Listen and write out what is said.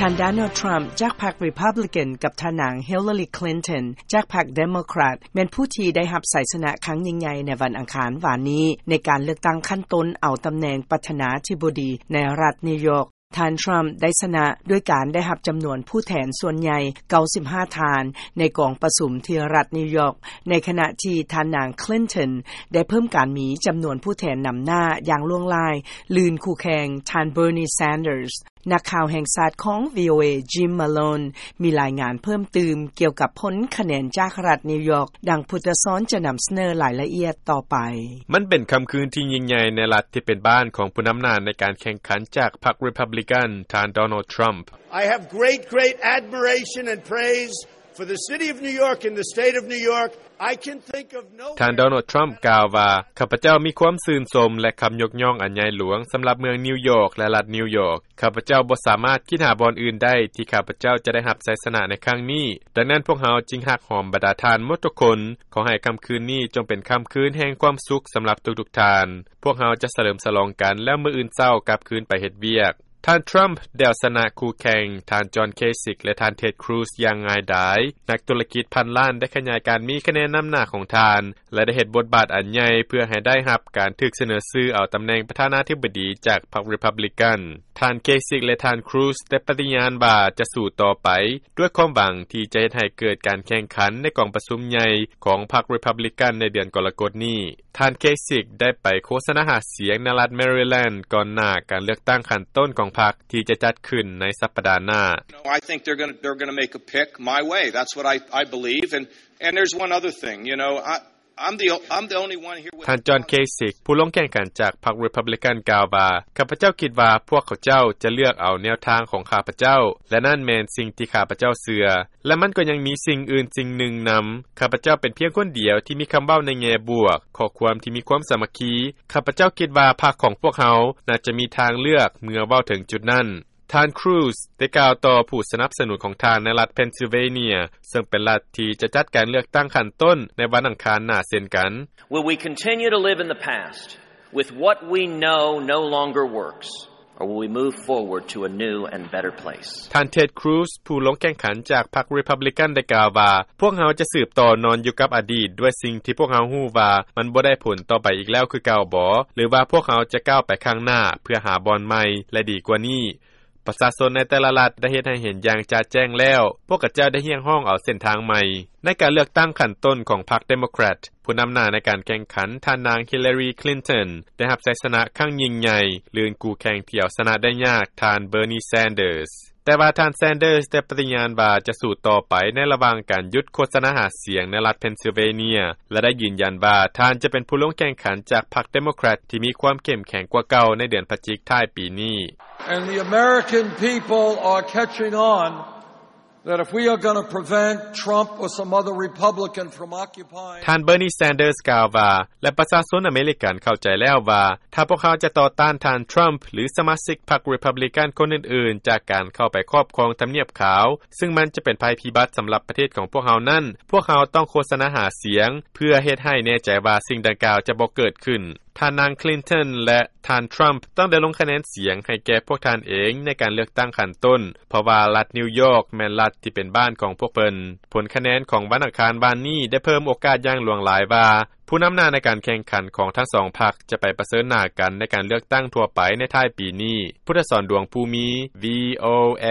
ທ່ານ Donald Trump ຈາກພັກ Republican ກັບທ່ານນາງ Hillary Clinton ຈາກພັກ Democrat ແມ່ນຜູ້ທີ່ໄດ້ຮັບໄຊຊະນະຄັ້ງຍິ່ງໃຫຍ່ໃນວັນອັງຄານວານນີ້ ໃນການເລືອກຕັ້ງຂັ້ນຕົ້ນເອົາຕຳແໜ່ງປະທານາທິບໍດີໃນລັດນິວຢອກ. ທ່ານ Trump ໄດ້ຊະນະດ້ວຍການໄດ້ຮັບຈຳນວນຜູ້ແທນສ່ວນໃຫຍ່ ເກົ້າສິບຫ້າ ທ່ານ ໃນກອງປະຊຸມທີ່ລັດນິວຢອກ, ໃນຂະນະທີ່ທ່ານນາງ Clinton ໄດ້ເພີ່ມການມີຈຳນວນຜູ້ແທນນຳໜ້າຢ່າງຫຼວງຫຼາຍ ລື່ນຄູ່ແຂ່ງທ່ານ Bernie Sanders. ນັກຂ່າວແຫ່ງຊາດຂອງ VOA Jim Malone ມີລາຍງານເພີ່ມຕື່ມກ່ຽວກັບຜົນຄະແນນຈາກລັດນິວຢອກ, ດັ່ງພຸດທະສອນຈະນຳສະເໜີລາຍລະອຽດຕໍ່ໄປ. ມັນເປັນຄ່ຳຄືນທີ່ຍິ່ງໃຫຍ່ໃນລັດທີ່ເປັນບ້ານຂອງຜູ້ນຳໜ້າໃນການແຂ່ງຂັນຈາກພັກ Republican ທ່ານ Donald Trump. I have great, great admiration and praise for the city of New York and the state of New York. I can think of no ທ່ານ Donald Trump ກ່າວວ່າ, ຂ້າພະເຈົ້າມີຄວາມຊື່ນຊົມ ແລະ ຄຳຍົກຍ້ອງອັນໃຫຍ່ຫຼວງສຳລັບເມືອງນິວຢອກ ແລະ ລັດນິວຢອກ. ຂ້າພະເຈົ້າບໍ່ສາມາດຄິດຫາບ່ອນອື່ນໄດ້ທີ່ຂ້າພະເຈົ້າຈະໄດ້ຮັບໄຊຊະນະໃນຄັ້ງນີ້. ດັ່ງນັ້ນພວກເຮົາຈຶ່ງຮັກຫອມບັນດາທ່ານໝົດທຸກຄົນ. ຂໍໃຫ້ຄ່ຳຄືນນີ້ຈົ່ງເປັນຄ່ຳຄືນແຫ່ງຄວາມສຸກສຳລັບທຸກໆທ່ານ. ພວກເຮົາຈະສະເຫຼີມສະຫຼອງກັນ ແລ້ວມື້ອື່ນເຊົ້າກັບຄືນໄປເຮັດວຽກ. ທ່ານ Trump ໄດ້ເອົາຊະນະຄູ່ແຂ່ງ ທ່ານ John Kasich ແລະ ທ່ານ Ted Cruz ຢ່າງງ່າຍດາຍ. ນັກທຸລະກິດພັນລ້ານໄດ້ຂະຫຍາຍການມີຄະແນນນຳໜ້າຂອງທ່ານ ແລະ ໄດ້ເຮັດບົດບາດອັນໃຫຍ່ເພື່ອໃຫ້ໄດ້ຮັບການຖືກສະເໜີຊື່ເອົາຕຳແໜ່ງປະທານາທິບໍດີຈາກພັກ Republican. ທ່ານ Kasich ແລະ ທ່ານ Cruz ໄດ້ປະຕິຍານວ່າຈະສູ້ຕໍ່ໄປ ດ້ວຍຄວາມຫວັງທີ່ຈະເຮັດໃຫ້ເກີດການແຂ່ງຂັນໃນກອງປະຊຸມໃຫຍ່ຂອງພັກ Republican ໃນເດືອນກໍລະກົດນີ້. ທ່ານ Kasich ໄດ້ໄປໂຄສະນາຫາສຽງໃນລັດ Maryland ກ່ອນໜ້າການເລືອກຕັ້ງຂັ້ນຕົ້ນຂອງພັກທີ່ຈະຈັດຂຶ້ນໃນສັບປະດາໜ້າ. No, I think they're gonna, they're gonna make a pick my way. That's what I, I believe. And, and there's one other thing, you know, I, I'm the, I'm the only one here with ທ່ານ John Kasich ຜູ້ລົງແຂ່ງຂັນຈາກພັກ Republican ກ່າວວ່າ, ຂ້າພະເຈົ້າຄິດວ່າພວກເຂົາເຈົ້າຈະເລືອກເອົາແນວທາງຂອງຂ້າພະເຈົ້າ ແລະ ນັ້ນແມ່ນສິ່ງທີ່ຂ້າພະເຈົ້າເຊື່ອ. ແລະ ມັນກໍຍັງມີສິ່ງອື່ນສິ່ງໜຶ່ງນຳ. ຂ້າພະເຈົ້າເປັນພຽງຄົນດຽວທີ່ມີຄຳເວົ້າໃນແງ່ບວກ, ຂໍ້ຄວາມທີ່ມີຄວາມສາມັກຄີ. ຂ້າພະເຈົ້າຄິດວ່າພັກຂອງພວກເຮົາໜ້າຈະມີທາງເລືອກເມື່ອເວົ້າເຖິງຈຸດນັ້ນ. ທ່ານ Cruz ໄດ້ກ່າວຕໍ່ຜູ້ສະໜັບສະໜູນຂອງທ່ານໃນລັດ Pennsylvania ເຊິ່ງເປັນລັດທີ່ຈະຈັດການເລືອກຕັ້ງຂັ້ນຕົ້ນໃນວັນອັງຄານໜ້າເຊັ່ນກັນ. Will we continue to live in the past with what we know no longer works? Or will we move forward to a new and better place? ທ່ານ Ted Cruz ຜູ້ລົງແຂ່ງຂັນຈາກພັກ Republican ໄດ້ກ່າວວ່າ, ພວກເຮົາຈະສືບຕໍ່ນອນຢູ່ກັບອະດີດດ້ວຍສິ່ງທີ່ພວກເຮົາຮູ້ວ່າມັນບໍ່ໄດ້ຜົນຕໍ່ໄປອີກແລ້ວຄືເກົ່າບໍ ຫຼືວ່າພວກເຮົາຈະກ້າວໄປຂ້າງໜ້າເພື່ອຫາບ່ອນໃໝ່ ແລະ ດີກວ່ານີ້? ປະຊາຊົນໃນແຕ່ລະລັດໄດ້ເຮັດໃຫ້ເຫັນຢ່າງຈະແຈ້ງແລ້ວ, ພວກເຂົາເຈົ້າໄດ້ຮຽກຮ້ອງເອົາເສັ້ນທາງໃໝ່. ໃນການເລືອກຕັ້ງຂັ້ນຕົ້ນຂອງພັກ Democrat, ຜູ້ນຳໜ້າໃນການແຂ່ງຂັນ ທ່ານນາງ Hillary Clinton ໄດ້ຮັບໄຊຊະນະຄັ້ງຍິ່ງໃຫຍ່ ລື່ນຄູ່ແຂ່ງທີ່ເອົາຊະນະໄດ້ຍາກ ທ່ານ Bernie Sanders. ແຕ່ວ່າທ່ານ Sanders ໄດ້ປະຕິຍານວ່າຈະສູ້ຕໍ່ໄປໃນລະຫວ່າງການຢຸດໂຄສະນາຫາສຽງໃນລັດ Pennsylvania ແລະ ໄດ້ຢືນຢັນວ່າທ່ານຈະເປັນຜູ້ລົງແຂ່ງຂັນຈາກພັກ Democrat ທີ່ມີຄວາມເຂັ້ມແຂງກວ່າເກົ່າໃນເດືອນພະຈິກທ້າຍປີນີ້. And the American people are catching on that if we are gonna prevent Trump or some other Republican from occupying ທ່ານ Bernie Sanders ກ່າວວ່າ, ແລະ ປະຊາຊົນອາເມລິກັນເຂົ້າໃຈແລ້ວວ່າ ຖ້າພວກເຮົາຈະຕໍ່ຕ້ານທ່ານ Trump ຫຼື ສະມາຊິກພັກ Republican ຄົນອື່ນໆ ຈາກການເຂົ້າໄປຄອບຄອງທຳນຽບຂາວ, ຊຶ່ງມັນຈະເປັນໄພພິບັດສຳລັບປະເທດຂອງພວກເຮົານັ້ນ, ພວກເຮົາຕ້ອງໂຄສະນາຫາສຽງ ເພື່ອເຮັດໃຫ້ແນ່ໃຈວ່າສິ່ງດັ່ງກ່າວຈະບໍ່ເກີດຂຶ້ນ. ທ່ານນາງ Clinton ແລະ ທ່ານ Trump ຕ້ອງໄດ້ລົງຄະແນນສຽງໃຫ້ແກ່ພວກທ່ານເອງໃນການເລືອກຕັ້ງຂັ້ນຕົ້ນ, ເພາະວ່າລັດນິວຢອກແມ່ນລັດທີ່ເປັນບ້ານຂອງພວກເພິ່ນ. ຜົນຄະແນນຂອງວັນອັງຄານວານນີ້ໄດ້ເພີ່ມໂອກາດຢ່າງຫຼວງຫຼາຍວ່າ ຜູ້ນຳໜ້າໃນການແຂ່ງຂັນຂອງທັງສອງພັກຈະໄປປະເຊີນໜ້າກັນໃນການເລືອກຕັ້ງທົ່ວໄປໃນທ້າຍປີນີ້. ພຸດທະສອນ ດວງພູມີ, VOA.